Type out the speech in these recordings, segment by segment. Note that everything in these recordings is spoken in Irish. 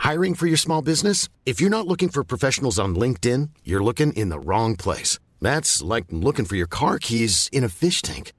Hiring for your small business? If you're not looking for professionals on LinkedIn, you're looking in the wrong place. That's like looking for your car keys in a fish tank.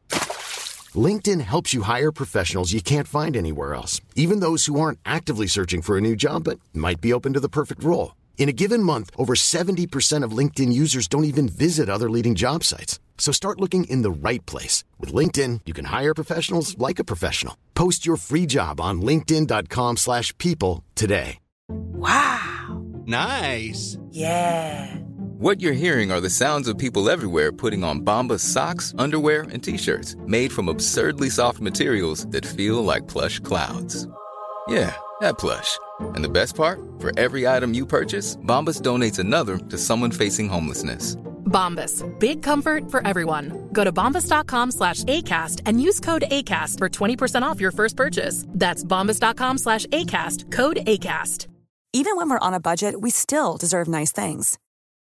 LinkedIn helps you hire professionals you can't find anywhere else, even those who aren't actively searching for a new job but might be open to the perfect role. In a given month, over 70% of LinkedIn users don't even visit other leading job sites. So start looking in the right place. With LinkedIn, you can hire professionals like a professional. Post your free job on linkedin.com slash people today. Wow. Nice. Yeah. What you're hearing are the sounds of people everywhere putting on Bombas socks, underwear, and t-shirts made from absurdly soft materials that feel like plush clouds. Yeah, that plush. And the best part? For every item you purchase, Bombas donates another to someone facing homelessness. Bombas. Big comfort for everyone. Go to bombas.com slash ACAST and use code ACAST for 20% off your first purchase. That's bombas.com slash ACAST. Code ACAST. Even when we're on a budget, we still deserve nice things.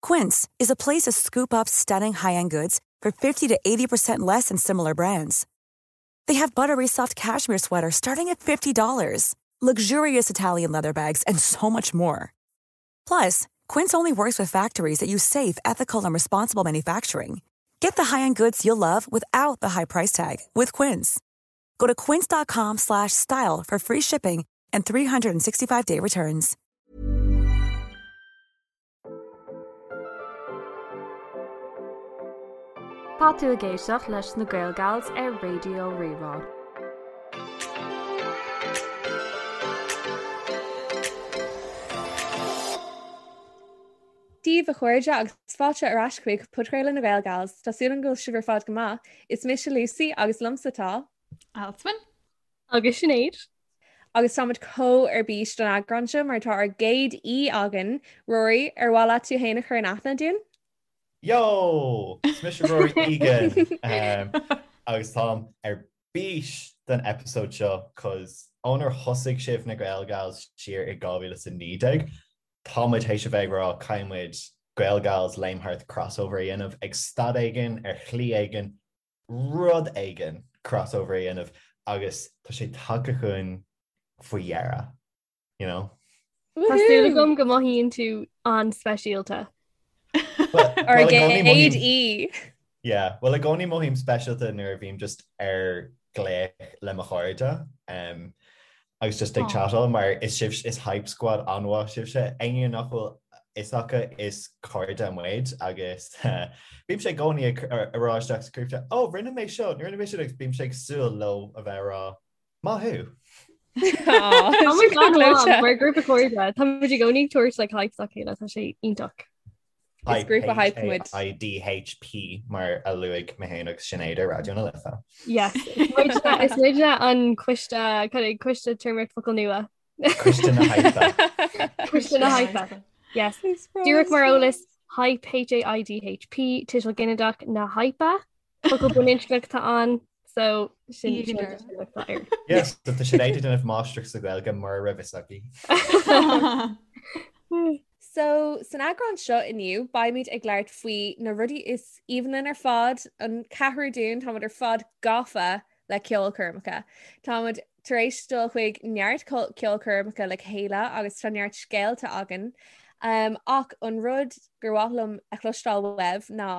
Quince is a place to scoop up stunning high-end goods for 50 to 80% less than similar brands. They have buttery soft cashmere sweaters starting at $50, luxurious Italian leather bags, and so much more. Plus, Quince only works with factories that use safe, ethical, and responsible manufacturing. Get the high-end goods you'll love without the high price tag with Quince. Go to quince.com slash style for free shipping and 365-day returns. Tá tú ag éisteacht leis na Gael Gals ar Raidió Rí-Rá. Dia daoibh a chairde agus fáilte ar ais chuig Podchraoladh na Gael Gals. Tá súil agam go bhfuil sibh ar fad go maith. Is mise Lucy agus liomsa tá. Alswyn. Agus Sinéad. Agus táimid chomh ar bís don eagrán seo mar tá ár gcéad aoi againn. Rory, ar mhaith leat tú féin a chur in aithne dúinn? Yo! Is mise Rory Egan agus táim ar bís don episode seo cos ónar thosaigh sibh na Gael Gals siar i 2019, tá muid théis a bheith ag rá caithfidh muid Gael Gals Léim Thart crossover a dhéanamh ag staid éigin, ar shlí éigin, rud éigin crossover a dhéanamh agus tá sé tagtha chugainn faoi dheireadh, you know? Tá súil agam go mothaíonn tú an-speisialta. Ár gcéad aoi. Yeah, well i gcónaí mothaím speisialta nuair a bhím just ar glaoch le mo chairde um, agus just ag chatáil mar is sibh is hype squad an-mhaith sibhse. Éinne nach bhfuil fhios acu is cairde muid agus bímse i gcónaí ag rá isteach sa group chat, oh rinne mé seo, rinne mé sin agus bímse ag súil leo a bheith ag rá maith thú. Tá muid an-mhaith mar grúpa cairde, tá muid i gcónaí ag tabhairt like hype dá chéile, tá sé iontach. Is grúpa hype muid. H-A-I-D-H-P mar a luaigh mé féin agus Sinéad ar Raidió na Life. Yes, is muidne an coiste, coiste téarmaíocht focal nua. Coiste na hype. Coiste na hype. Yes. Díreach mar eolas, hype H-A-I-D-H-P, tuiseal ginideach na hype. Focal baininscneach atá ann, so sin sin atá air. Yes, tá Sinéad ag déanamh máistreacht sa Ghaeilge mura raibh fhios aici. So, san eagrán seo inniu, beimid ag labhairt faoi na rudaí is aoibhinn linn ar fad, an ceathrú dúinn, táimid ar fad gafa le ceolchoirmeacha. Táimid tar éis dul chuig neart ceolchoirmeacha le chéile agus tá neart scéalta againn. Um, ach an rud gur mhaith liom a chloisteáil uaibh ná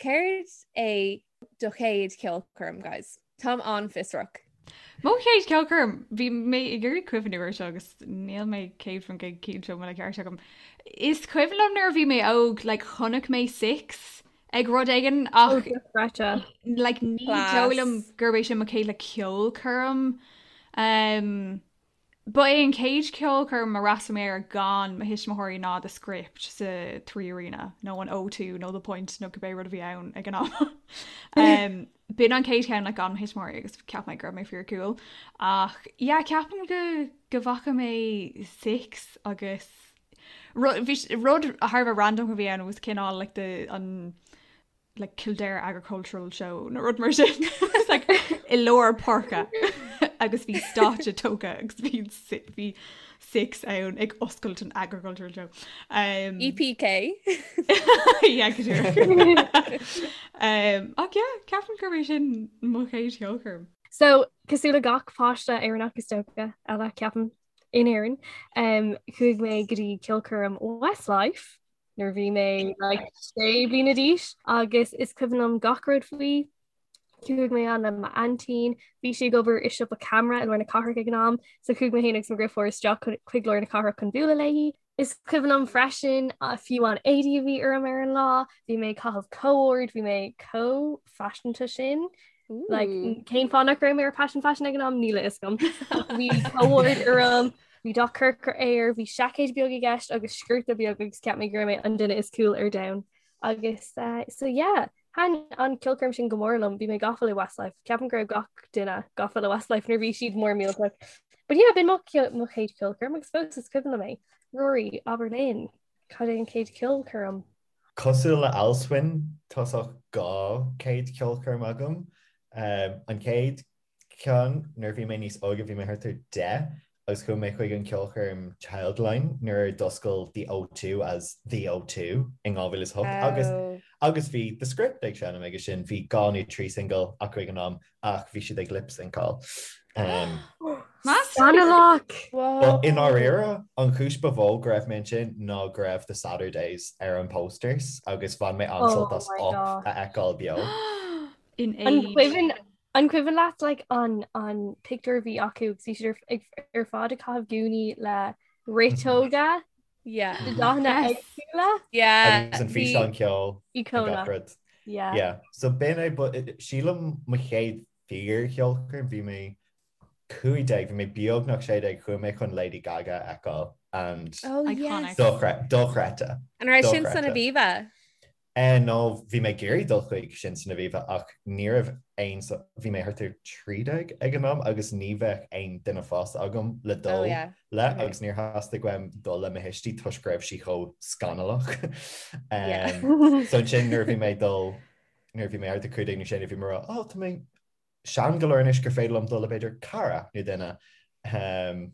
céard é do chéad cheolchoirm, guys? Táim an-fhiosrach. Mo chéad cheolchoirm, bhí mé ag iarraidh cuimhniú air seo agus níl mé 100% cinnte an bhfuil an ceart agam. Is cuimhin liom nuair a bhí mé óg, like, chonaic mé Six ag rud éigin ach oh, like, ní dóigh liom gurb é sin mo chéad like, ceolchoirm. Um, Ba é an chéad cheolchoirm a fhreastail mé air gan mo thuismitheoirí ná The Script sa Three Arena, nó an O2 nó The Point nó cibé rud a bhí ann ag an am. B'in an chéad cheann like gan mo thuismitheoirí agus cheap mé go raibh mé fíor cool. Ach yeah, ceapaim go go bhfaca mé Six agus rud rud thar a bheith random a bhí ann was cineál like the an like Kildare Agricultural Show nó rud mar sin It's like i lár páirce agus bhí stáitse tógtha agus bhí bhí Six ann ag oscailt an Agricultural Show. Um, EPK yeah, go díreach. um, ach yeah, ceapaim gurb é sin mo chéad cheolchoirm. So cosúil le gach páiste Éireannach is dócha eile ceapaim. in Éirinn, um, chuaigh mé go dtí ceolchoirm Westlife nuair a bhí mé like, sé bliana d'aois agus is cuimhin liom gach rud faoi. Chuaigh mé ann le m'aintín, bhí sí ag obair i siopa ceamara i lár na cathrach ag an am, so chuaigh mé féin agus mo dheirfiúr isteach chuig lár na cathrach chun bualadh léi. Is cuimhin liom freisin fiú an éadaí a bhí orm ar an lá, bhí mé ag caitheamh co-ord, bhí mé chomh faiseanta sin. Like, cén fáth nach raibh mé ar Passion Fashion ag an am níl a fhios agam. Bhí co-ord orm, bhí dath corcra air, bhí seaicéid beag i gceist agus sciorta beag agus cheap mé go raibh mé an duine is cool ar domhan. Agus uh, so yeah, Thaitin an ceolchoirm sin go mór liom, bhí mé gafa le Westlife. Ceapaim go raibh gach duine gafa le Westlife nuair a bhí siad mór millteach. But yeah, b'in mo mo chéad cheolchoirm agus fós is cuimhin liom é. Rory, abair linn, cad é an chéad cheolchoirm? Cosúil le Alswyn, tá sách 2 chéad cheolchoirm agam. An chéad ceann, nuair a bhí mé níos óige, bhí mé thart ar 10 agus chuaigh mé chuig an ceolchoirm Childline nuair a d'oscail The O2 as The O2 in 2008 agus agus bhí The Script ag seinm aige sin, bhí dhá nó trí single acu ag an am ach bhí siad ag lip-syncáil. Um, Scannalach! But i ndáiríre, an chúis ba mhó go raibh mé ansin ná go raibh The Saturdays ar an posters agus bhain mé an-sult as Oh my Up God. a fheiceáil beo. In An age. cuimhin An cuimhin leat like an an pictiúr a bhí acu agus bhí siad ar ag ar fad ag caitheamh gúnaí le riteoga Yeah. de dathanna Yes. éagsúla? Yeah. Agus an Bhí físeán ceoil ag Íocónach. gach rud. Yeah. Yeah. So b'in é but sílim mo chéad fíor-cheolchoirm bhí mé 15 bhí mé beagnach 16 chuaigh mé chun Lady Gaga a fheiceáil and Oh Iconic. yes. dochreidte. An raibh sin san Dochreidte. Aviva? Eh no, bhí mé ag iarraidh dul chuig sin san Aviva ach ní raibh aon, bhí mé thart ar 13 ag an am agus ní bheadh aon duine fásta agam le Oh dul yeah. le Okay. agus níor theastaigh uaim dul le mo thuistí toisc go raibh sí chomh scannalach. Yeah. Um, so ansin nuair a bhí mé ag dul, nuair a bhí mé thart ar 15 nó 16 bhí mé ag rá, oh tá mé sean go leor anois gur féidir liom dul le b'fhéidir cara nó duine. Um,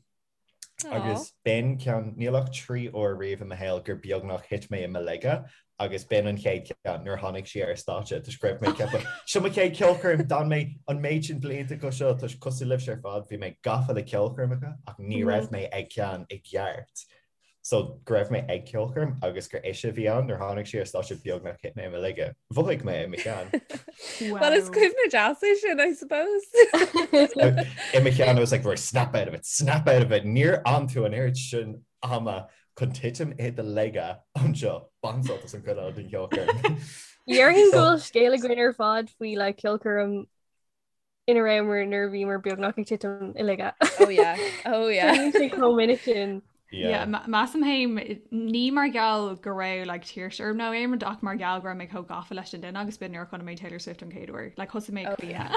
Agus b'in ceann, níl ach 3 uair riamh i mo shaol gur beagnach thit mé i mo laige agus b'in an chéad cheann nuair a tháinig sí ar stáitse toisc go raibh mé ag ceapadh, seo mo chéad ceolchoirm, d'fhan mé an méid sin blianta go seo toisc cosúil libhse ar fad bhí mé gafa le ceolchoirmeacha ach ní raibh mé ag ceann i gceart. So go raibh mé ag ceolchoirm agus gur ise a bhí ann nuair tháinig sí ar stáitse beagnach thit mé i mo laige. Mhothaigh mé i mo cheann. Well is cuimhne deas é sin, I suppose. I mo cheann I was like, right, snap out of it, snap out of it. Níor fhan tú an oiread sin ama chun titim i do laige anseo. Bain sult as an chuid eile den cheolchoirm. Déarfainn go bhfuil scéal againn ar fad faoi like ceolchoirm ina rabhamar nuair a bhíomar beagnach ag titim i laige. Oh yeah, oh yeah. Bíonn sé chomh minic sin. Yeah, measaim féin ní mar gheall go raibh like tuirse orm nó aon rud ach mar gheall go raibh mé chomh gafa leis an duine agus b'in nuair a chonaic mé Taylor Swift an chéad uair. Like thosaigh mé Oh yeah.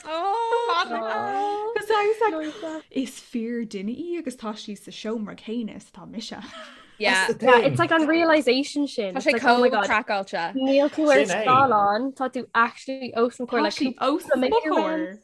Oh, Cos I was like, is fíor duine í agus tá sí sa seomra céanna is atá mise. Yeah. That's the Yeah, thing. it's like an realization sin. Tá It's sé like, oh my chomh God. craiceáilte. Níl tú ar Sin é. scáileán, tá tú actually os mo chomhair Tá like sí os cúpla mo méadar uaim. chomhair.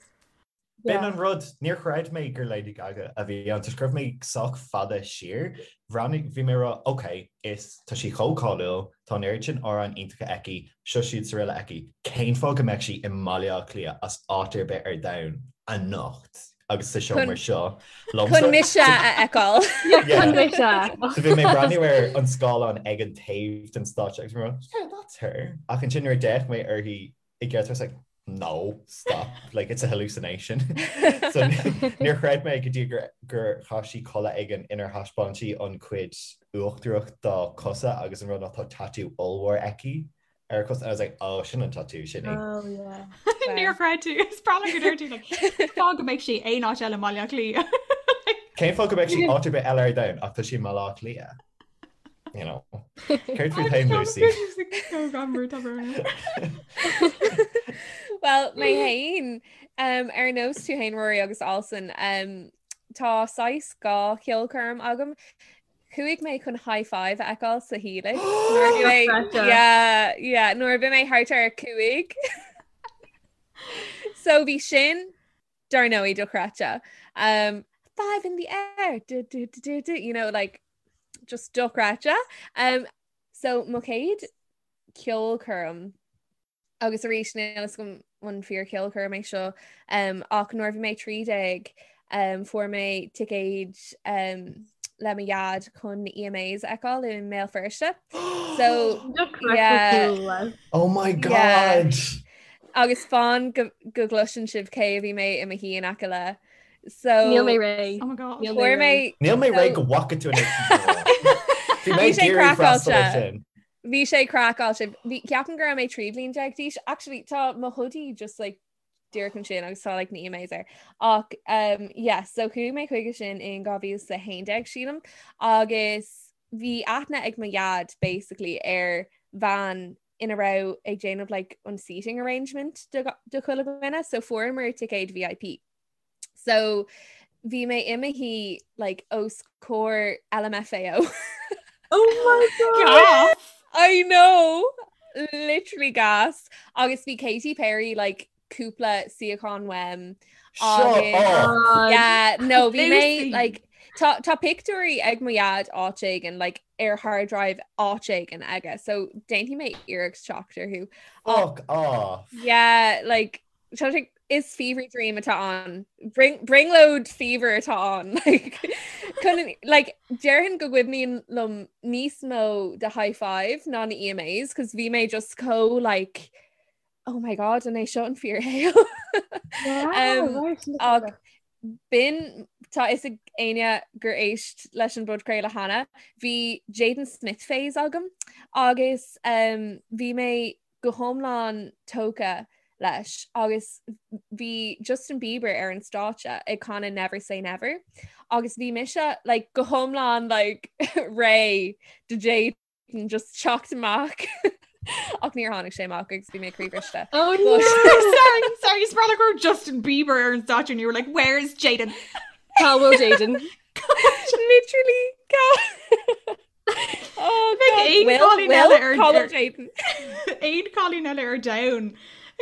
B'in Yeah. an rud, níor chreid mé gur Lady Gaga a bhí ann, toisc go raibh mé sách fada siar. Bhreathnaigh, bhí mé ag rá, ok, is, tá sí chomh cáiliúil, tá an oiread sin amhráin iontacha aici, seo siúd 's araile aici, cén fáth go mbeadh sí i mBaile Átha Cliath as áit ar bith ar domhan anocht agus sa seomra seo liomsa? Chun mise a fheiceáil. Yeah, chun mise a fheiceáil. So bhí mé ag breathnú ar an scáileán ag an taobh den stáitse agus bhí mé ag rá, yeah, that's her. Ach ansin nuair a d'fhéach mé uirthi i gceart I was like, no, stop, like it's a hallucination. So níor chreid mé go dtí gur gur chaith sí culaith éigin inar thaispeáin sí an chuid uachtarach dá cosa agus an rud ná tá tatú ollmhór aici ar a cosa and I was like, oh, sin an tatú, sin í. Oh yeah. Níor chreid tú, is breá liom go deir tú like, cén fáth go mbeadh sí aon áit eile i mBaile Átha Cliath. Cén fáth go mbeadh sí áit ar bith eile ar domhan ach tá sí i mBaile Átha Cliath. You know. Céard faoi féin, Lucy? Well, mé féin um, ar nós tú féin Rory agus Alswyn um, tá saghas dhá cheolchoirm agam. Chuaigh mé chun Hi-5 a fheiceáil sa Helix. Nuair a bhí mé- Dochreidte. Yeah, yeah, nuair a bhí mé thart ar 5. So bhí sin dar ndóigh dochreidte. Um, five in the air, du, du, du, du, du, you know, like, just dochreidte. Um, so mo chéad ceolchoirm agus arís níl a fhios agam an fíor cheolchoirm é seo um, ach nuair a bhí mé 13. Um, fuair mé ticéid um, le mo dhaid chun na EMAs a fheiceáil i mBéal Feirste. So yeah. Oh my God! Yeah. Agus fan go, go gcloiseann sibh cé a bhí mé i mo shuí in aice le. So Níl mé réidh. Oh my God. Níl mé fuair mé réidh. Níl mé réidh go bhfaca tú an Bhí mé Bhí sé ag iarraidh freastal air craiceáilte. sin. Bhí sé craiceáilte. Bhí ceapaim go raibh mé 13 bhliain d'aois. Actually tá mo hoodie just like díreach ansin agus tá like na EMAs air. Ach um, yeah, so chuaigh mé chuige sin in 2011 sílim agus bhí aithne ag mo dhaid basically ar bhean ina raibh ag déanamh like an seating arrangement do, do chuile dhuine, so fuaireamar ticéid VIP. So bhí mé i mo shuí like os comhair LMFAO. Oh my God! Gas! I know! Literally gas. Agus bhí Katy Perry like cúpla suíochán uaim. Shut Agus up! God. yeah, no, bhí mé Lucy! like tá tá pictiúirí ag mo dhaid áit éigin like ar hard drive áit éigin aige, so déanfaidh mé iarracht teacht orthu. Fuck off! Yeah, like Tá sé is fever dream atá ann. Brionglóid fever atá ann. Like, chun, like, déarfainn go gcuimhníonn liom níos mó de high five ná na EMAs, cos bhí mé just chomh like, oh my god, an é seo an fíorshaol? Wow, Um, right, look at ach that. b'in tá fhios ag éinne gur éist leis an bpodchraoladh cheana, bhí Jaden Smith phase agam agus um, bhí mé go hiomlán tógtha leis agus bhí Justin Bieber ar an stáitse ag canadh Never Say Never agus bhí mise like, go hiomlán like, réidh do Jaden just teacht amach ach níor tháinig sé amach agus bhí mé croíbhriste. Oh no! Sorry, sorry, is breá go raibh Justin Bieber ar an stáitse and you were like, where's Jaden? Cá bhfuil Jaden? Literally cá Oh, Bheadh God. aon Will, cailín Will, eile ar cá bhfuil ar- Jaden. aon cailín eile ar domhan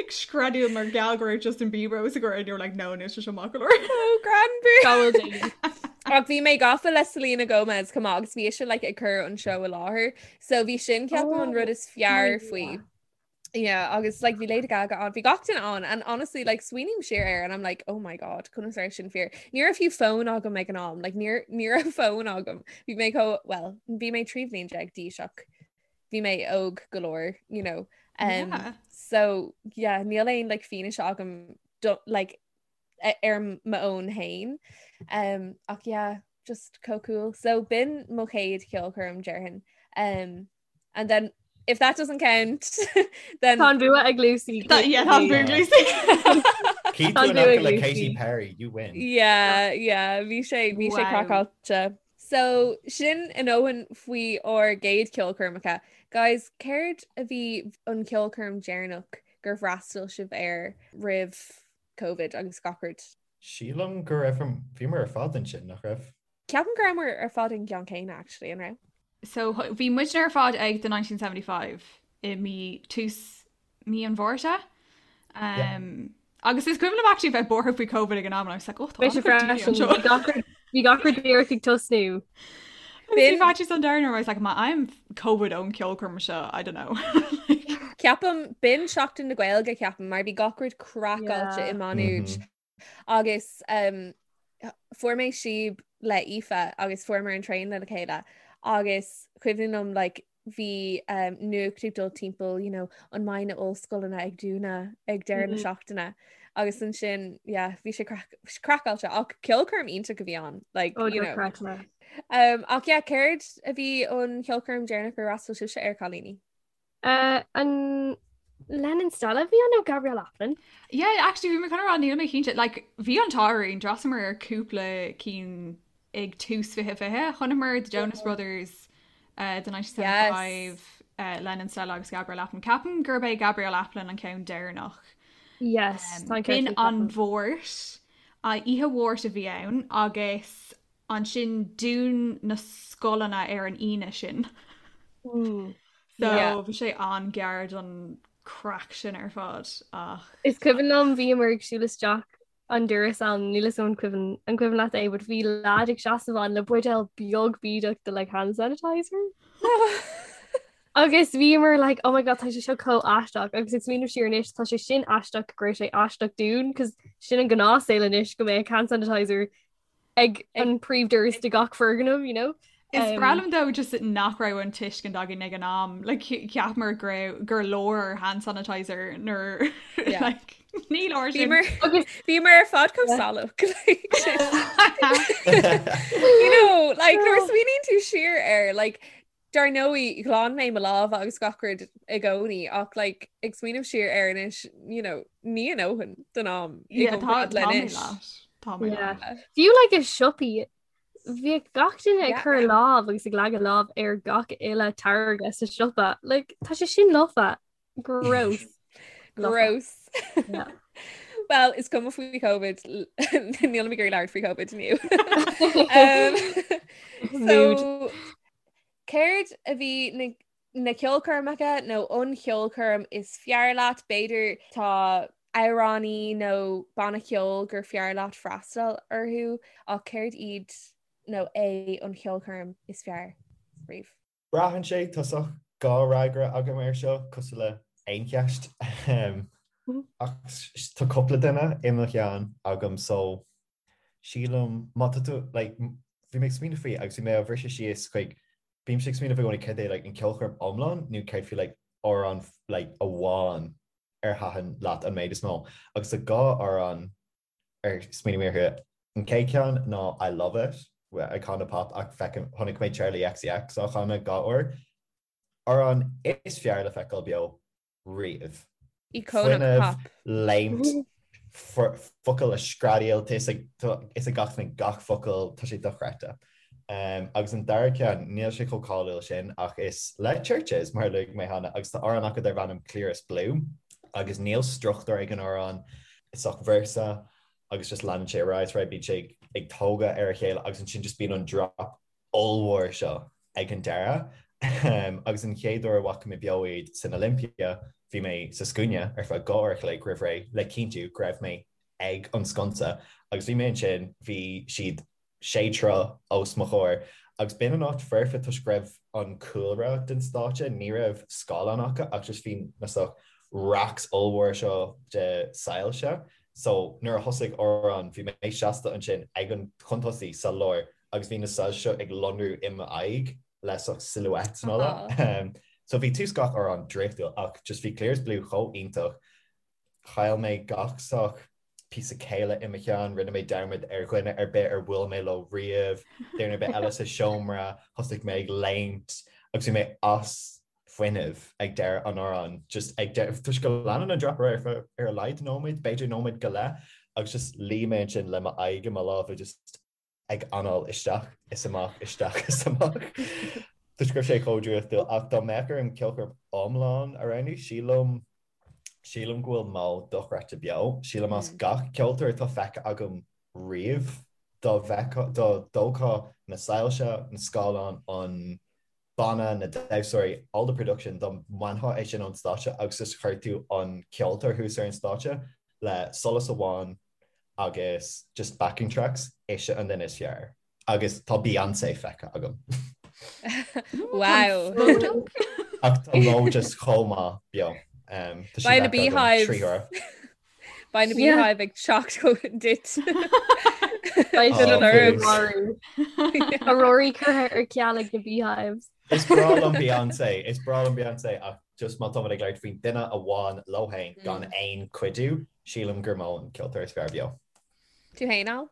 ag screadaíl mar gheall go raibh Justin Bieber os a gcomhair and you were like, no, níl sé seo maith go leor. Oh, Granbury. Cá bhfuil Jaden? Ach bhí mé gafa le Selena Gomez chomh maith agus bhí ise like, ag cur an seó i láthair. So bhí sin ceapaim an Oh, rud is fearr my faoi. Yeah, agus like bhí Lady Gaga ann, bhí gach duine ann and honestly like smaoiním siar air and I'm like oh my god, conas ar sin fíor. Ní raibh fiú fón agam ag an am, like ní ní raibh fón agam. Bhí mé chomh well, bhí mé 13 bhliain d'aois ach bhí mé óg go leor, you know. Um, Yeah. So yeah, níl aon like fianaise agam do, like ar m'fhón féin. Um, ach yeah, just chomh cool. So b'in mo chéad cheolchoirm déarfainn. Um, and then if that doesn't count, then Tá an bua ag Lucy. That, yeah, tá an bua ag Lucy. Keep Tá an doing bua ag like Lucy. Katy Perry, you win. Yeah, yeah, bhí sé bhí sé Wow. craiceáilte. So sin a ndóthain faoi ár gcéad cheolchoirmeacha. Guys, céard a bhí an ceolchoirm deireanach gur fhreastail sibh air roimh Covid agus gach rud? Sílim go raibh bhíomar ar fad ansin, nach raibh? Ceapaim go rabhamar ar fad an gceann céanna actually, an raibh? So bhí muidne ar fad ag The 1975 i mí tús mí an Mhárta. Um, Agus is cuimhin liom actually bheith buartha faoi Covid ag an am and I was like, oh, tá Bhí sé an-chuid daoine freisin. anseo. Bhí gach rud- Bhí gach rud díreach ag tosnú. Bhí faitíos an domhain orm, I was like, má fhaighim Covid ón ceolchoirm seo, I don't know. Ceapaim b'in Seachtain na Gaeilge ceapaim mar bhí gach rud craiceáilte Yeah. i Má Nuad agus um, fuair mé síob le Aoife agus fuaireamar an traein le chéile agus cuimhin liom like, bhí um, nuacht ag dul timpeall you know, an mbeidh na ollscoileanna ag dúnadh ag deireadh na Mhm. seachtaine agus ansin yeah, bhí sé craiceáilte ach ceolchoirm iontach a bhí ann like, Oh, you know. dochreidte. Um, ach yeah, céard a bhí an cheolchoirm deireanach gur fhreastail sibhse air cailíní? Uh, an Lennon Stella a bhí ann nó Gabrielle Aplin? Yeah, actually bhí mé chun a rá níl mé cinnte, like bhí an t-ádh orainn, d'fhreastalamar ar cúpla cinn ag tús 2020, chonaiceamar The Jonas Brothers, uh, The 1975, Yes. uh, Lennon Stella agus Gabrielle Aplin. Ceapaim gurb é Gabrielle Aplin an ceann deireanach. Yes, Um, tá an ceart B'in agat, an ceapaim. Mháirt, uh, oíche Mháirt a bhí ann agus ansin dún na scoileanna ar an Aoine sin. Mm. So Yeah. bhí sé an-ghearr don craic sin ar fad ach Is cuimhin liom bhíomar ag siúl isteach an doras ann, níl 'fhios agam an cuimhin an cuimhin leat é, but bhí lad ag seasamh ann le buidéal beag bídeach de like hand sanitizer. Agus bhíomar like oh my god tá sé seo chomh aisteach agus ag smaoineamh siar anois tá sé sin aisteach go raibh sé aisteach dúinn cos sin an gnáthshaol anois go mbeadh hand sanitizer ag an príomhdoras de gach foirgneamh, you know. Is breá liom though just nach raibh an tuiscint againn ag an am like cheapamar go raibh gur leor hand sanitizer nuair like ní leor sin. Bhíomar ar fad chomh salach. You know, like nuair a smaoiníonn tú siar air, like Dar ndóigh, ghlan mé mo lámha agus gach rud i gcónaí ach like, ag smaoineamh siar air anois, you know, ní a ndóthain don am i gcomparáid le anois. Tá mé leat. Fiú like i siopaí, bhíodh gach duine ag cur lámh agus ag leagadh lámh ar gach uile táirge sa siopa. Like, tá sé sin lofa. Gross. Gross. Yeah. Well, is cuma faoi COVID níl mé ag iarraidh labhairt faoi COVID inniu. Um, so, céard a bhí na, na ceolchoirmeacha nó an cheolchoirm is fearr leat? B'fhéidir tá amhránaí nó banna ceoil gur fearr leat freastal orthu ach céard iad nó é an cheolchoirm is fearr riamh? Braitheann sé, tá saghas dhá fhreagra agam air seo, cosúil le aon cheist. Ach tá cúpla duine i mo cheann agam so sílim má tá tú like bhí mé ag smaoineamh faoi agus bhí mé á bhriseadh síos chuig bímse ag smaoineamh i gcónaí céard é like an ceolchoirm iomlán nó céard faoi like amhrán like amháin ar thaitin leat an méid is mó agus tá dhá amhrán ar smaoinigh mé orthu. An chéad cheann ná I Love It, Icona Pop ach feicim, chonaic mé Charli XCX á chanadh dhá uair. Amhrán is fearr le feiceáil beo riamh. Icona Pop. Léimt, focail a screadaíl, tá fhios ag gach duine gach focal, tá sé dochreidte. Agus an dara ceann, níl sé chomh cáiliúil sin ach is le Chvrches, mar a luaigh mé cheana, agus tá amhrán acu darb ainm Clearest Blue agus níl struchtúr ag an amhrán, is saghas véarsa agus just leanann sé ar aghaidh is ar aghaidh, bíonn sé ag tógadh ar a chéile agus ansin just bíonn an drop ollmhór seo ag an deireadh. Agus an chéad uair a bhfaca mé beo iad san Olympia, bhí mé sa scuaine ar feadh 2 uair a chloig roimh ré le cinntiú go raibh mé ag an sconsa agus bhí mé ansin, bhí siad sé troigh os mo chomhair agus b'in an áit foirfe toisc go raibh an cúlra den stáitse, ní raibh scáileán acu ach just bhí na saghas racks ollmhór seo de soilse so nuair a thosaigh amhrán bhí mé seasta ansin ag an chun tosaigh sa lár agus bhí na soilse seo ag lonrú i m'aghaidh le saghas silhouettes and all that. So bhí tús gach amhrán draíochtúil ach just bhí Clearest Blue chomh iontach Chaill mé gach saghas píosa céille i mo cheann, rinne mé dearmad ar dhuine ar bith ar bhuail mé leo riamh, duine ar bith eile sa seomra, thosaigh mé ag léimt agus bhí mé as fuinneamh ag deireadh an amhráin, just ag deireadh, toisc go leanann an drop ar aghaidh ar a laghad nóiméad, b'fhéidir nóiméad go leith, agus just luigh mé ansin le m'aghaidh i mo lámha just ag anáil isteach is amach, isteach is amach. Toisc go raibh sé chomh draíochtúil ach dá mbeadh orm ceolchoirm iomlán a roghnú, sílim, sílim go bhfuil Mo dochreidte beo. Sílim as gach ceoltóir atá feicthe agam riamh, dá bhfeicfeá, dá dtógfá na soilse, na scáileáin, an banna, na damhsóirí, all the production, dá mbainfeá é sin ón stáitse agus just chuir tú an ceoltóir thuas ar an stáitse le solas amháin agus just backing tracks, ise an duine is fearr. Agus tá Beyonce feicthe agam. Wow. Ach tá Mo just chomh maith beo. Um, tá sí Beidh na feicthe agam Beehives. trí huaire. Beidh na Beehive ag teacht chugat duit. Beidh Oh, siad please. marú. Tá Rory curtha ar ceal ag na Beehives. Is breá liom Beyonce, is breá liom Beyonce ach just má táimid ag labhairt faoin duine amháin leo féin gan aon cuidiú, sílim gur Mo an ceoltóir is fearr beo. Tú féin, Al?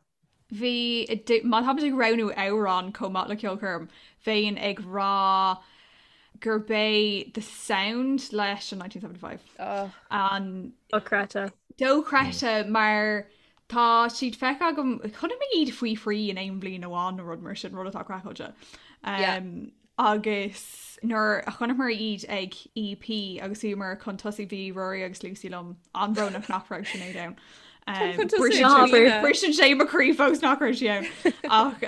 Bhí, má táimid ag roghnú amhrán chomh maith le ceolchoirm, bheinn ag rá gurb é The Sound leis an 1975. An. Dochreidte. Dochreidte mar tá siad feicthe agam, chonaic mé iad faoi thrí in aon bhliain amháin nó rud mar sin, rud atá craiceáilte. Agus nuair a chonaiceamar iad ag EP agus bhíomar chun tosaigh bhí Rory agus Lucy liom, an-bhrónach nach raibh Sinéad ann. Briseann sé mo chroí fós nach raibh sí ann. Ach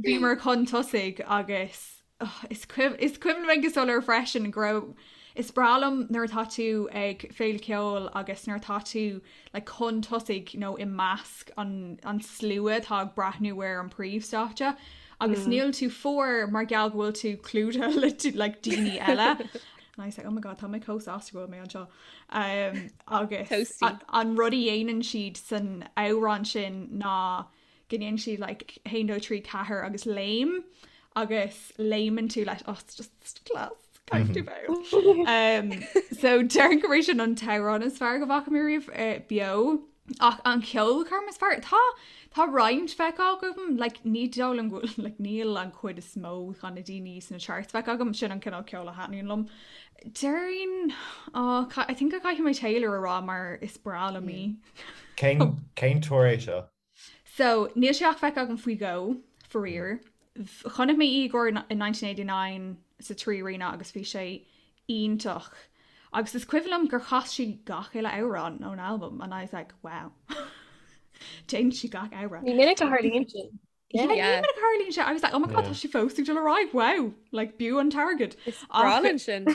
bhíomar chun tosaigh agus is cuimhin liom go soiléir freisin go raibh is breá liom nuair atá tú ag féile ceoil agus nuair atá tú like chun tosaigh nó i measc an an slua atá ag breathnú ar an príomhstáitse. Agus níl tú fuar mar gheall go bhfuil tú clúdaithe le like daoine eile. And I was like, oh my god, tá mé chomh sásta go bhfuil mé anseo. Um, agus an rud a dhéanann siad san amhrán sin ná go ndéanann siad like 1, 2, 3, 4 agus léim agus léimeann tú leis oh, it's just class. Caithfidh tú bheith. Um, so déarfainn gurb é sin an t-amhrán is fearr go bhfaca mé riamh eh, beo. Ach an cheolchoirm is fearr tá tá roinnt feicthe agam like, ní dóigh liom go bhfuil like, níl an chuid is mó de na daoine sna charts feicthe agam sin an cineál ceoil a thaitníonn liom. Déarfainn oh, I think go gcaithfidh mé Taylor a rá mar is breá liom í. Cén cén tour é seo? So níl sé ach feicthe agam faoi dhó faraor. Chonaic mé í i gcomhair in 1989 sa 3 Arena agus bhí sé iontach. Agus is cuimhin liom gur chas sí gach uile amhrán ón albam and I was like, wow. Déanann sí gach amhrán. Ní minic a tharlaíonn sin. Yeah, ní minic a tharlaíonn sé. I was like, oh my god, tá sí fós ag dul ar aghaidh, wow, like b'fhiú an t-airgead. Is breá linn sin.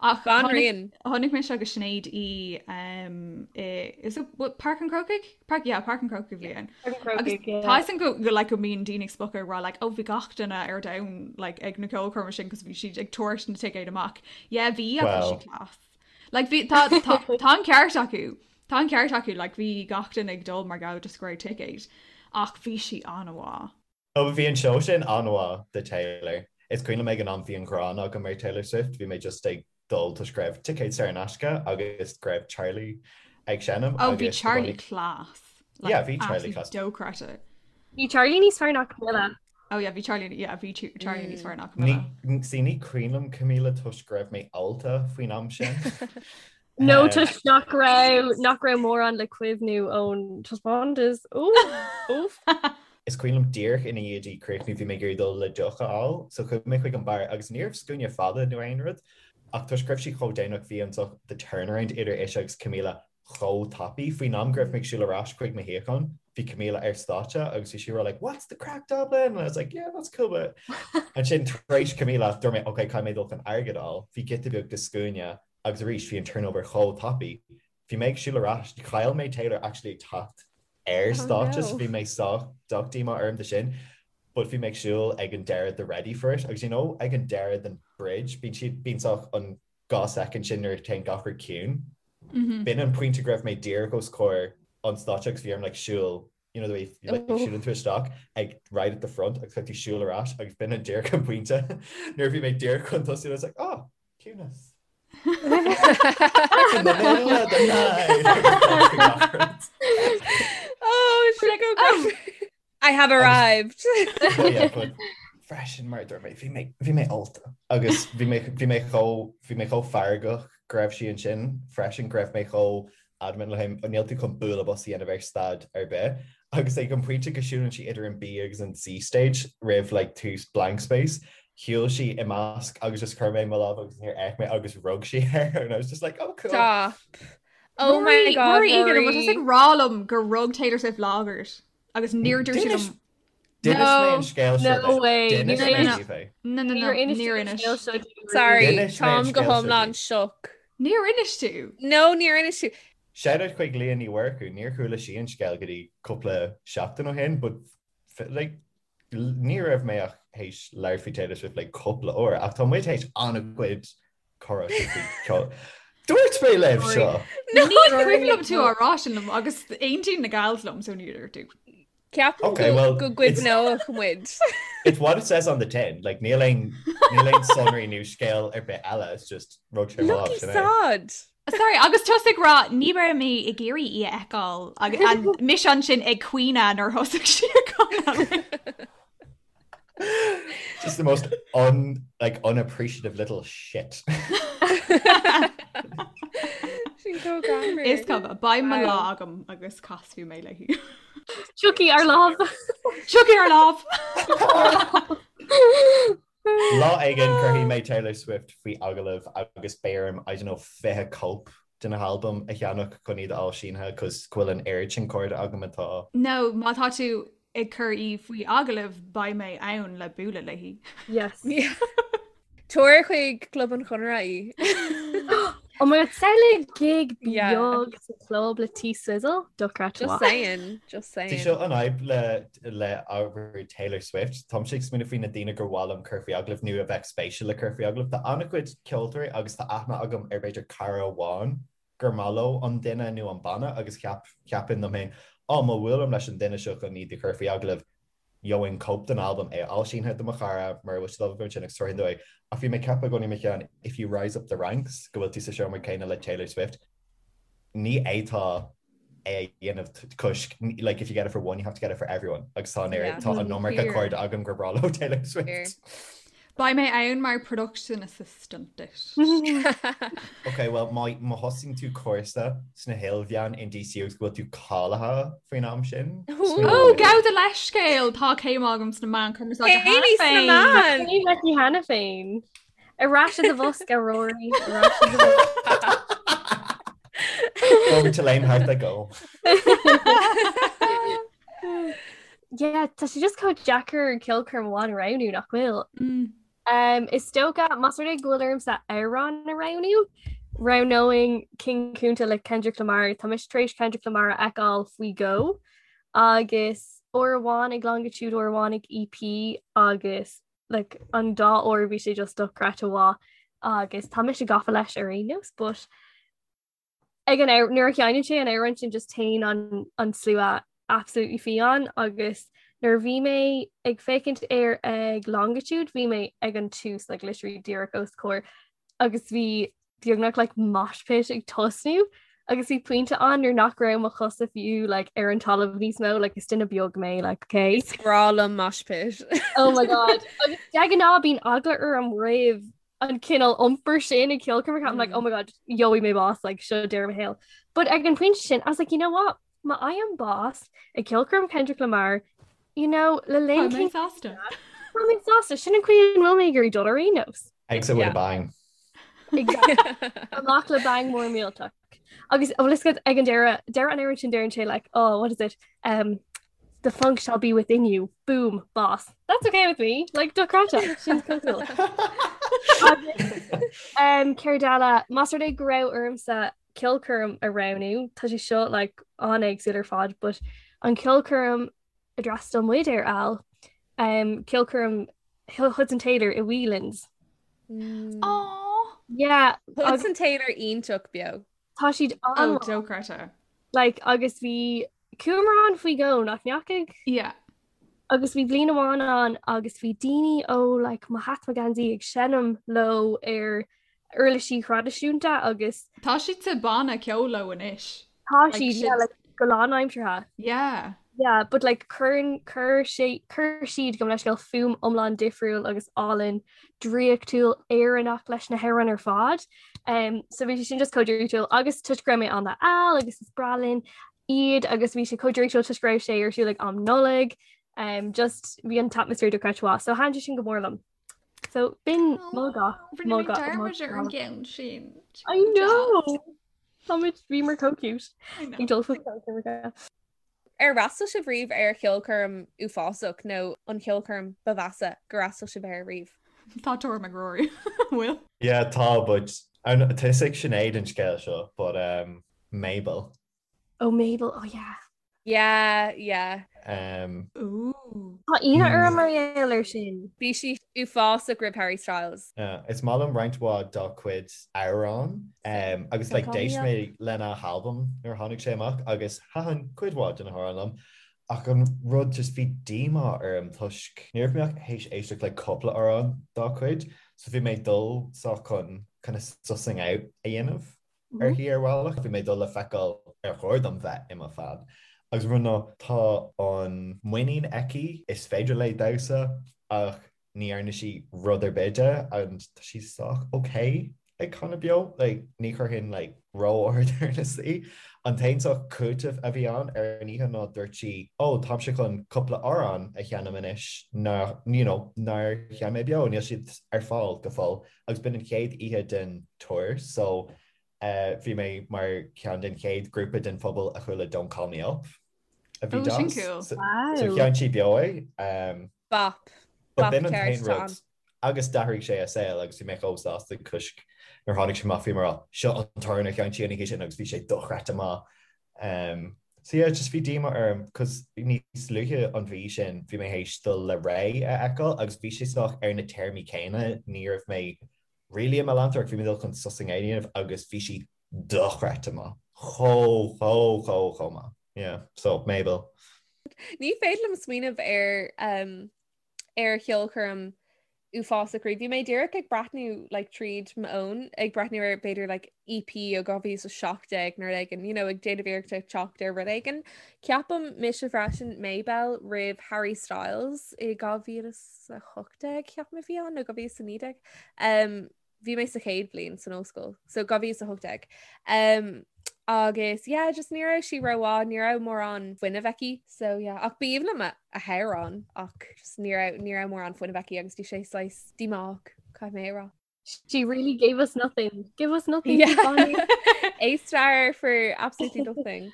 Ach Banríon. Chonaic mise agus Sinéad í um, i, is it what, Páirc an Chrócaigh? Páirc, yeah, Páirc an Chrócaigh a bhí ann. Agus tá sin go go like go mbíonn daoine ag spochadh ag rá like oh bhí gach duine ar domhan like ag na ceolchoirme sin cos bhí siad ag tabhairt na ticéid amach. Yeah bhí agus bhí sí class. Like bhí tá tá tá an ceart acu. Tá an ceart acu like bhí gach duine ag dul mar gheall just go raibh ticéid. Ach bhí sí an-mhaith. Ó bhí an seó sin an-mhaith de Taylor. Is cuimhin liom ag an am bhí an ghráin agam ar Taylor Swift, bhí mé just ag dul toisc go raibh ticéid saor in aisce agus go raibh Charlie ag seinm Ó bhí Charlie class. Like, Yeah, bhí Charlie class. Dochreidte. Bhí Charlie níos fearr ná Camila. Oh yeah, bhí Charlie yeah, bhí Charlie níos fearr ná Camila. Ní, see, ní cuimhin liom Camila toisc go raibh mé ólta faoin am sin. No toisc nach raibh nach raibh mórán le cuimhniú ón taispeántas. Oof. Is cuimhin liom díreach ina dhiaidh di críochnú bhí mé ag iarraidh dul le deoch a fháil so chuaigh mé chuig an beár agus ní raibh scuaine fada nó aon rud ach toisc go raibh sí chomh déanach bhí an the turnaround idir ise agus Camila chomh tapaidh. Faoin am go raibh mé ag siúl ar ais chuig mo shuíochán bhí Camila ar stáitse agus bhí sí ag rá like what's the craic Dublin? And I was like yeah that's cool but ansin tar éis Camila dúirt mé ok caithfidh mé dul chun airgead a fháil. Bhí giota beag de scuaine agus arís bhí an turnover chomh tapaidh. Bhí mé ag siúl ar ais, chaill mé Taylor actually ag teacht ar Oh stáitse so no. bhí mé sách sách díomá orm de sin but bhí mé ag siúl ag an deireadh de Ready for It agus you know ag an deireadh den bridge bíonn siad bíonn sách an 2 soicind sin nuair a téann gach rud ciúin. B'in an pointe go raibh mé díreach os comhair an stáitse agus bhí orm like siúl you know the way like oh. siúlann tú isteach ag right at the front agus caithfidh tú siúl ar ais agus b'in an díreach an pointe nuair a bhí mé díreach chun tosú I was like oh ciúnas. In the middle of the night. Oh, should I go oh. I have arrived. Oh, yeah, but freisin mar dúirt mé bhí mé bhí mé ólta agus bhí mé bhí mé chomh bhí mé chomh feargach go raibh sí ansin freisin go raibh mé chomh adamant le him níl tú chun bualadh bos a dhéanamh ar staid ar bith agus ag an pointe go siúlann sí idir an B agus an C stage roimh like tús blank space shiúil sí i measc agus just chuir mé mo lámh agus níor fhéach mé agus rug sí air and I was just like oh cool. Stop. Oh my god. Rory Egan, an bhfuil tusa ag rá liom gur rug Taylor Swift lámh ort agus níor dúirt sí liom D'inis mé an scéal seo No way. D'inis mé daoibh é. No, no, no, Níor inis níor tú an inis. scéal seo dúinn. Sorry, D'inis mé an táim go scéal seo hiomlán daoibh. shook. Níor inis tú. No, níor inis tú. Shout out chuig Leah Ní Mhurchú, níor chuala sí an scéal go dtí cúpla seachtain ó shin, but like, ní raibh mé ach théis labhairt faoi Taylor Swift like cúpla uair, ach tá muid théis an-chuid comhrá faoi ceol. Dúirt mé libh seo! Ní cuimhin liom tú á rá sin liom agus aontaíonn na gals liom so níor dúirt tú. Ceapaim Okay, well, go gcuimhneodh muid. It's what it says on the tin. Like, níl aon níl aon sonraí nó scéal ar bith eile, it's just rug sé mo lámh, Lucky sin é. sod! Sorry, agus tusa ag rá ní raibh mé ag iarraidh í a fheiceáil agus mise ansin ag caoineadh nuair thosaigh sí ag canadh. Just the most un, like, unappreciative little shit. Sin chomh greannmhar. Is cuma, beidh mo Wow. lá agam agus casfaidh mé léi. Tiocfaidh ár lá. Tiocfaidh ár lá! Lá éigin cuirfidh mé Taylor Swift faoi agallamh agus beidh orm, I don't know, 20 cóip de na halbaim a cheannach chun iad a fháil sínithe cos go bhfuil an oiread sin cairde agam atá No, má tá tú ag cur í faoi agallamh beidh mé ann le bualadh léi. Yes. Tabhair chuig Club an Chonartha í. Oh my god, samhlaigh gig beag sa chlub le T Swizzle, dochreidte. Just saying, just saying. Tá seo an fhadhb le le ábhar Taylor Swift. Táimse ag smaoineamh faoi na daoine gur mhaith liom cur faoi agallamh nó a bheadh spéisiúil le cur faoi agallamh. Tá an-chuid ceoltóirí agus tá aithne agam ar b'fhéidir cara amháin gur maith leo an duine nó an banna agus cheap cheapfainn liom féin, á má bhuailim leis an duine seo chun iad a chur faoi agallamh, gheobhainn cóip den albam, é a fháil sínithe do mo chara, mura bhfuil siad ábalta sin agus tabharfainn dó é. Ach bhí mé ag ceapadh i gcónaí i mo cheann, if you rise up the ranks, go bhfuil tú sa seomra céanna le Taylor Swift, ní fhéadfá é a dhéanamh toisc, like, if you get it for one, you have to get it for everyone. Agus tá an oiread, tá an iomarca cairde agam gur breá leo Taylor Swift. Beidh mé ann mar production assistant duit. Ok, well, má má thosaíonn tú cúrsa sna hilmheáin in DCU agus go bhfuil tú cáilithe faoin am sin. Ó, gabh do leithscéal, tá céim agam sna meáin chumarsáide cheana féin. Céimí sna meáin! Céim aici cheana féin. Ar ais i do bhosca, Rory. Ar ais i do bhosca. Over to Lane Hart I go. Yeah, tá sé just chomh deacair ceolchoirm amháin a roghnú nach bhfuil. Mm. Um, is dócha más rud é go bhfuil ormsa amhrán a roghnú, roghnóinn King Kunta le Kendrick Lamar Tá mise tar éis Kendrick Lamar a fheiceáil faoi dhó agus uair amháin ag Longitude uair amháin ag EP agus like, an dá uair bhí sé just dochreidte mhaith agus tá mise gafa leis ar aon nós, but ag an nuair a sheinneann sé an amhrán sin just téann an an slua absolutely fiáin agus nuair a bhí mé ag féachaint air ag Longitude bhí mé ag an tús like literally díreach os comhair agus bhí beagnach like mosh pit ag tosnú agus bhí pointe ann nuair nach raibh mo chosa fiú like ar an talamh níos mó like is duine beag mé like okay Is breá liom mosh pit. Oh my god agus de ghnáth bíonn eagla orm roimh an cineál iompair sin ag ceolchoirmeacha I'm like oh my god gheobhaidh mé bás like seo deireadh mo shaoil. But ag an pointe sin I was like you know what má fhaighim bás ag ceolchoirm Kendrick Lamar you know le linn Tá mé sásta. Tá mé sásta sin an chaoi a bhfuil mé ag iarraidh dul ar aon nós. Exit with a bang. Exactly. Amach le bang mór millteach. Agus an bhfuil a fhios agat ag an deireadh deireadh an amhráin sin deireann sé like oh what is it um the funk shall be within you boom bás that's okay with me like dochreidte sin cool um céard eile más rud é go raibh ormsa ceolchoirm a roghnú tá sé seo like an-éagsúil ar fad but an ceolchoirm a d'fhreastail muid air Al um ceolchoirm Hudson Taylor i Whelan's mm. Aww. Yeah Hudson Taylor iontach beo Tá siad an oh, dochreidte like agus bhí Chuamar ann faoi dhó nach ndeachaigh? Yeah. Agus bhí bliain amháin ann agus bhí daoine ó like mo hat mo gheansaí ag seinm leo ar uirlisí thraidisiúnta agus. Tá siad sa banna ceoil leo anois. Tá siad yeah, like, go lánaimseartha. Yeah. Yeah, but like cuireann cuir sé cuir siad gabh mo leithscéal fuaim iomlán difriúil agus álainn draíochtúil Éireannach leis na hamhráin ar fad. Um, so bhí sé sin just chomh draíochtúil agus toisc go raibh mé ann le Al agus is breá linn iad agus bhí sé chomh draíochtúil toisc go raibh sé ar siúl ag am Nollag um, just bhí an t-atmaisféar dochreidte mhaith, so thaitin sé sin go mór liom. So b'in mo ga mo ga dearmad ar an gceann sin. I know! Táimid bhíomar chomh cute ag dul faoi Ar fhreastail sibh riamh ar cheolchoirm uafásach nó an cheolchoirm ba mheasa gur fhreastail sibh air riamh? Tá tuairim ag Rory. Bhfuil? Yeah, tá, but tá a fhios ag Sinéad an scéal seo, but um, Mabel. Oh Mabel, oh yeah. Yeah, yeah. Um, Ooh. Tá ionadh orm mar gheall air sin. Bhí sí uafásach roimh Harry Styles. Yeah, is maith liom roinnt mhaith dá cuid amhrán um, agus like, d'éist mé lena halbam nuair a tháinig sé amach agus thaitin cuid mhaith de na hamhráin liom ach an rud just bhí díomá orm toisc ní raibh mé ach théis éisteacht le cúpla amhrán dá cuid so bhí mé ag dul sách chun kind of sussing out a dhéanamh uirthi ar bhealach. Bhí mé ag dul le feiceáil ar chóir dom bheith i mo fan. Agus rud ná tá an muinín aici, is féidir léi damhsa ach ní dhearna sí rud ar bith de and tá sí sách ok ag canadh beo. Like, ní chuirfinn like ró-ard ar na saoi. An t-aon sách cúiteamh a bhí ann ar an oíche ná dúirt sí, oh táimse chun cúpla amhrán a sheinm anois ná, you know, nár sheinn mé beo, níl siad ar fáil go fóill. Agus b'in an chéad oíche den tour so bhí mé mar cheann den chéad grúpa den phobal a chuala Don't Call Me Up a bhí Oh, sin deas. cool. So Wow. sheinn sí beo é. Bop. But Bop b'in an ceart t-aon atá rud ann. Agus d'athraigh sé a saol agus bhí mé chomh sásta toisc nuair tháinig sé amach bhí mé ag rá seo an t-amhrán a sheinn sí an oíche sin agus bhí sé dochreidte maith. Um, so yeah, just bhí díomá orm cos níos luaithe an mhí sin bhí mé théis dul le Raye a fheiceáil agus bhí sé sách ar na téarmaí céanna, ní raibh mé really i mo leantóir ach bhí mé dul chun sos i nGaeilge a dhéanamh agus bhí sí dochreidte maith. Chomh, chomh, chomh, chomh maith. Yeah, so Mabel. Ní féidir liom smaoineamh ar um, ar cheolchoirm uafásach riamh. Bhí mé díreach ag breathnú like, tríd m'fhón ag breathnú ar b'fhéidir like, EP ó 2017 nó rud éigin, you know, ag déanamh iarracht ag teacht ar rud éigin. Ceapaim mise freisin Mabel roimh Harry Styles i 2018 ceapaim a bhí ann nó 2019. Um, bhí mé sa chéad bhliain san ollscoil, so 2018. Um, agus yeah, just ní raibh sí rómhaith, ní raibh mórán fuinnimh aici, so yeah, ach b'aoibhinn liom a, a hamhrán ach just ní raibh, ní raibh mórán fuinnimh aici agus bhí sé saghas díomách, caithfidh mé a rá. She really gave us nothing. Give us nothing. Yeah. A star for absolutely nothing.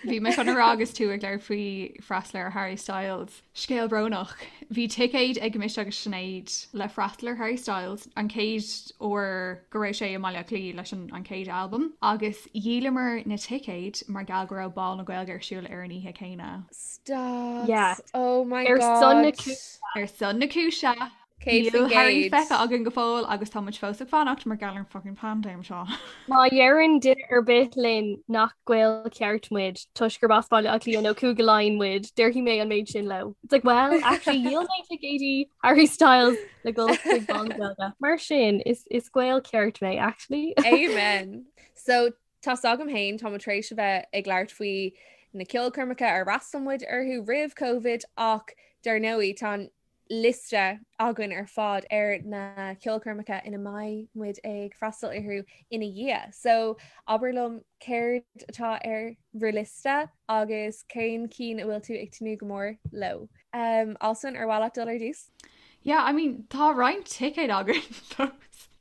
Bhí mé chun a rá agus tú ag labhairt faoi freastal ar Harry Styles. Scéal brónach. Bhí ticéid ag mise agus Sinéad le freastal ar Harry Styles an chéad uair go raibh sé i mBaile Átha Cliath leis an an chéad albam agus dhíolamar na ticéid mar gheall go raibh Bál na Gaeilge ar siúl ar an oíche chéanna. Stop. Yeah. Oh my Ar God. son na cúise. Ar son na cúise. 100%. Níl Harry feicthe againn go fóill agus tá muid fós ag fanacht mar gheall ar an fucking paindéim seo. Má dheireann duine ar bith linn nach Gael ceart muid toisc gurb as Baile Átha Cliath nó Cúige Laighean muid, déarfaidh mé an méid sin leo. It's like, well, actually dhíol mé ticéidí Harry Styles le dul chuig Bál na Gaeilge. Mar sin, is is Gael ceart mé, actually. Amen. So tá's agam féin, tá muid tar éis a bheith ag labhairt faoi na ceolchoirmeacha ar fhreastail muid orthu roimh Covid ach dar ndóigh tá an liosta againn ar fad ar na ceolchoirmeacha ina mbeidh muid ag freastal orthu ina dhiaidh. So abair liom céard atá ar bhur liosta agus cén cinn a bhfuil tú ag tnúth go mór leo. Um, Alswyn, ar mhaith leat dul ar dtús? Yeah, I mean, tá roinnt ticéad againn fós.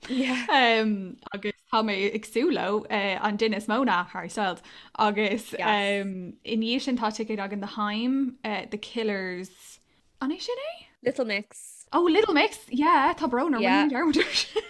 Yeah. Um, agus tá mé ag súil leo uh, an duine is mó ná Harry Styles. Agus Yes. um, i ndiaidh sin tá ticéad againn do Haim, uh, The Killers, An é sin é? Little Mix. Oh, Little Mix, yeah, tá brón orm, Yeah. rinne mé dearmad air sin.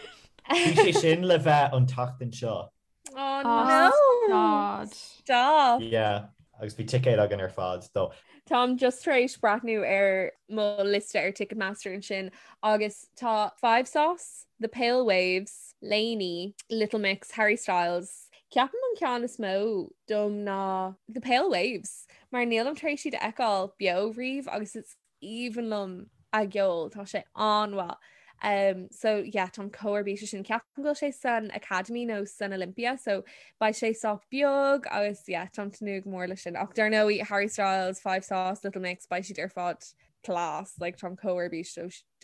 Bhí sé sin le bheith an tseachtain seo. Oh Oh, no! God. Stop! Yeah, agus bhí ticéid againn ar fad dó. Táim just tar éis breathnú ar mo liosta ar Ticketmaster ansin agus tá 5SOS, The Pale Waves, LANY, Little Mix, Harry Styles. Ceapaim an ceann is mó dom ná The Pale Waves. Mar nílim tar éis iad a fheiceáil beo riamh agus is aoibhinn liom a gceol, tá sé an-mhaith. Um, so yeah, táim chomh ar bís leis sin. Ceapaim go bhfuil sé san Academy nó san Olympia, so beidh sé sách beag agus yeah, táim ag tnúth go mór leis sin. Ach dar ndóigh, Harry Styles, 5SOS, Little Mix, beidh siad ar fad class, like táim chomh ar bís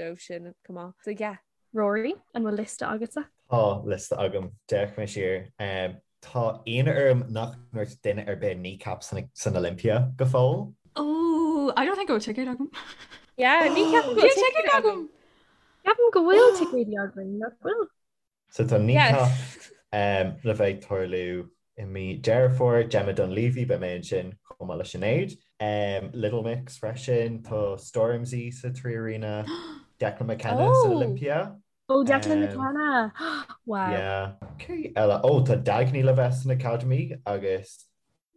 dóibh sin chomh maith. So yeah, Rory, an bhfuil liosta agatsa? Tá liosta agam. D'fhéach mé siar. Tá ionadh orm nach ndúirt duine ar bith Kneecap san Olympia go fóill. Oh, I don't think go bhfuil ticéad agam. Yeah, ní ceapaim go Níl bhfuil ticéad ticéad agam. agam. Ceapaim go bhfuil ticéidí againn, nach bhfuil? So tá Kneecap le bheith ag tarlú i mí Deireadh Fómhair, Gemma Dunleavy, beidh mé ansin chomh maith le Sinéad. Little Mix freisin, tá Stormzy sa 3Arena, Declan McKenna san Oh! Olympia. Oh, Declan McKenna! Wow. Yeah. Cé eile? Oh, tá Dagny le bheith san Academy agus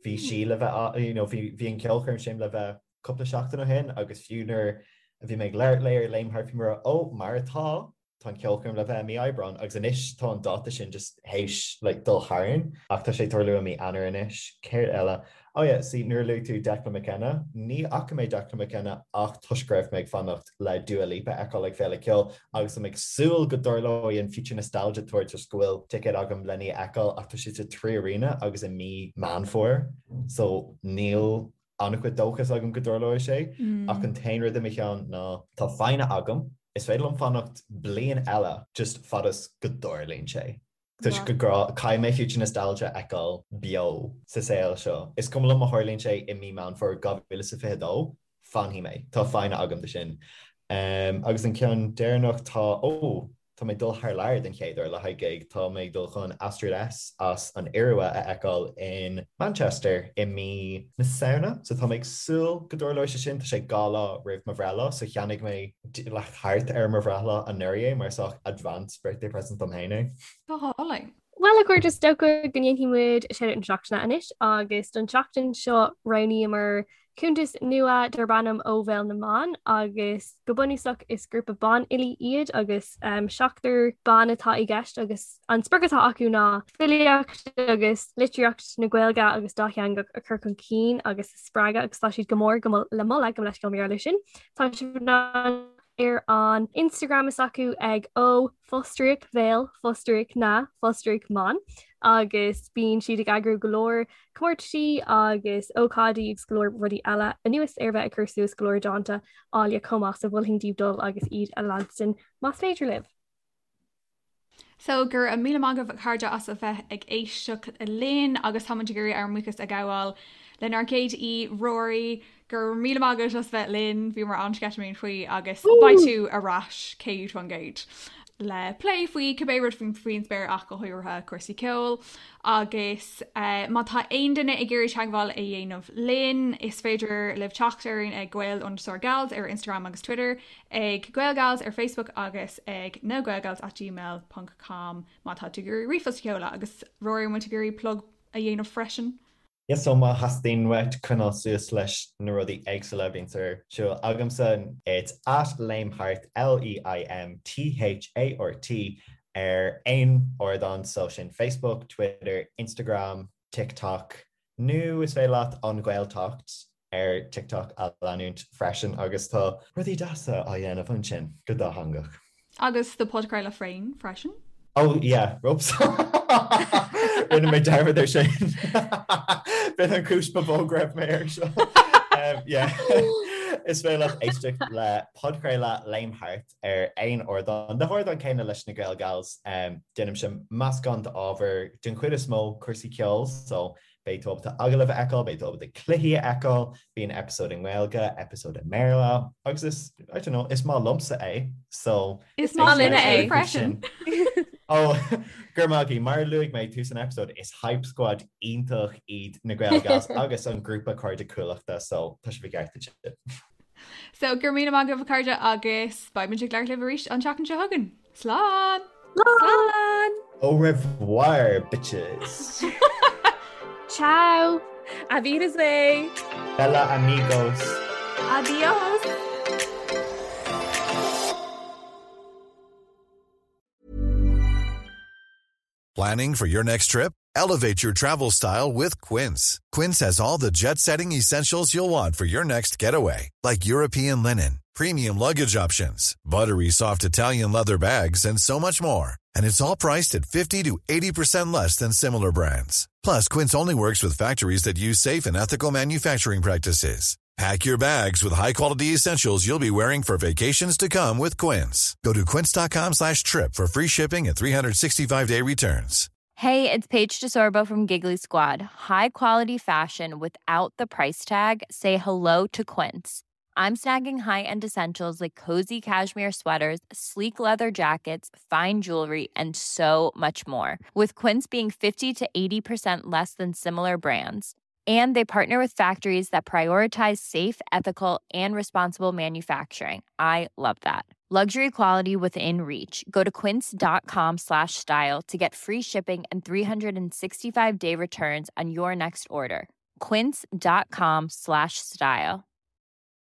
bhí sí le bheith, you know, bhí bhí an ceolchoirm sin le bheith cúpla seachtain ó shin agus fiú nuair a bhí mé ag labhairt léi ar Léim Thart bhí mé ag rá, oh, mar atá, tá an ceolchoirm le bheith i mí Aibreán agus anois tá an dáta sin just théis like dul tharainn ach tá sé ag tarlú i mí Eanáir anois. Céard eile? Oh yeah, see nuair a luaigh tú Declan McKenna, ní fhaca mé Declan McKenna ach toisc go raibh mé ag fanacht le Dua Lipa a fheiceáil ag Féile Ceoil agus tá mé ag súil go dtarlóidh an Future Nostalgia Tour toisc go bhfuil ticéad agam lena í a fheiceáil ach tá sé sa 3Arena agus i mí Meán Fómhair so níl an-chuid dóchas agam go dtarlóidh sé, ach an t-aon rud i mo cheann ná tá foighne agam, is féidir liom fanacht bliain eile just fad is go dtarlaíonn sé. Toisc go gcaithfidh mé Future Nostalgia a fheiceáil beo sa saol seo. Is cuma liom má tharlaíonn sé i mí Meán Fómhair 2022, fanfaidh mé. Tá foighne agam do sin. Agus an ceann deireanach tá, ó! tá mé ag dul thar lear den chéad uair le haghaidh gig. Tá mé ag dul chun Astrid S as an Iorua a fheiceáil in Manchester i mí na Samhna. So tá mé ag súil go dtarlóidh sé sin. Tá sé 2 lá roimh mo bhreithlá so cheannaigh mé like thart ar mo bhreithlá anuraidh é mar sách advance birthday present dom féin é. Go hálainn. Bhuel a chairde, is dócha go ndéanfaidh muid Shout-Out na Seachtaine anois agus don tseachtain seo roghnaíomar cuntas nua darb ainm Ó Bhéal na mBan agus go bunúsach is grúpa banfhilí iad agus seachtar ban atá i gceist agus an sprioc atá acu ná filíocht agus litríocht na Gaeilge agus dátheangach a chur chun cinn agus a spreagadh agus tá siad go mór go le moladh gabh mo leithscéal mar gheall air sin. Tá sibh in ann ar an Instagram is acu ag ó fostríoc bhéal fostríoc na fostríoc mban agus bíonn siad ag eagrú go leor comórtaisí agus ócáidí agus go leor rudaí eile anuas ar bheith ag cur suas go leor dánta áille chomh maith so mholfainn daoibh dul agus iad a leanstan más féidir libh. So, go raibh míle maith agaibh a chairde as a bheith ag éisteacht linn agus táimid ag iarraidh ár mbuíochas a ghabháil lenár gcéad aoi, Rory. Go raibh míle maith agat as bheith linn, bhíomar an-sceitimíneach faoi agus beidh tú ar ais 100% le plé faoi cibé rud faoin spéir ach go háirithe cúrsaí ceoil. Agus má tá aon duine ag iarraidh teagmháil a dhéanamh linn, is féidir libh teacht orainn ag Gael underscore Gals ar Instagram agus Twitter. ag Gaelgals ar Facebook agus ag nagaelgals at gmail ponc com má tá tú ag iarraidh ríomhphost a sheoladh agus Rory an bhfuil tú ag iarraidh plug a dhéanamh freisin? Yes so má theastaíonn uait coinneáil suas leis na rudaí éagsúla a bhíonns ar siúl agamsa it's at Leimthart, L-E-I-M-T-H-A-R-T, ar aon ardán so sin Facebook, Twitter, Instagram, TikTok nó is féidir leat An Ghaeltacht ar TikTok a leanúint freisin agus tá rudaí deasa á dhéanamh ansin go dátheangach. Agus do podchraoladh féin freisin. Oh yeah, whoops. Rinne mé dearmad ar sin. B'in an chúis ba mhó go raibh mé ar seo. Yeah. Is féidir leat éisteacht le podchraoladh Léim Thart ar aon ardán. Na hardáin céanna leis na Gael Gals, déanaimse meascán d'ábhar, den chuid is mó cúrsaí ceoil, so beidh tú ábalta agallaimh a fheiceáil, beidh tú ábalta cluichí a fheiceáil, bíonn eipeasóid i nGaeilge, eipeasóid i mBéarla, agus is, I don't know, is maith liomsa é, so Is maith linne é freisin! Ó, go raibh maith agaibh. Mar a luaigh mé ag tús an eipeasóid, is hype squad iontach iad na Gael Gals agus an grúpa Cairde Cuallachta, so tá sibh i gceart ansin. So go raibh míle maith agaibh a chairde agus beidh muid ag labhairt libh arís an tseachtain seo chugainn. Slán! Slán! Au revoir, bitches! Ciao! Auf Wiedersehen! Bella amigos! Adios! Planning for your next trip? Elevate your travel style with Quince. Quince has all the jet setting essentials you'll want for your next getaway, like European linen, premium luggage options, buttery soft Italian leather bags, and so much more. And it's all priced at 50 to 80% less than similar brands. Plus, Quince only works with factories that use safe and ethical manufacturing practices. Pack your bags with high-quality essentials you'll be wearing for vacations to come with Quince. Go to quince.com slash trip for free shipping and 365-day returns. Hey, it's Paige DeSorbo from Giggly Squad. High quality fashion without the price tag. Say hello to Quince. I'm snagging high-end essentials like cozy cashmere sweaters, sleek leather jackets, fine jewelry, and so much more. With Quince being 50 to 80% less than similar brands. And they partner with factories that prioritize safe, ethical, and responsible manufacturing. I love that. Luxury quality within reach. Go to quince.com slash style to get free shipping and 365 day returns on your next order. Quince.com slash style.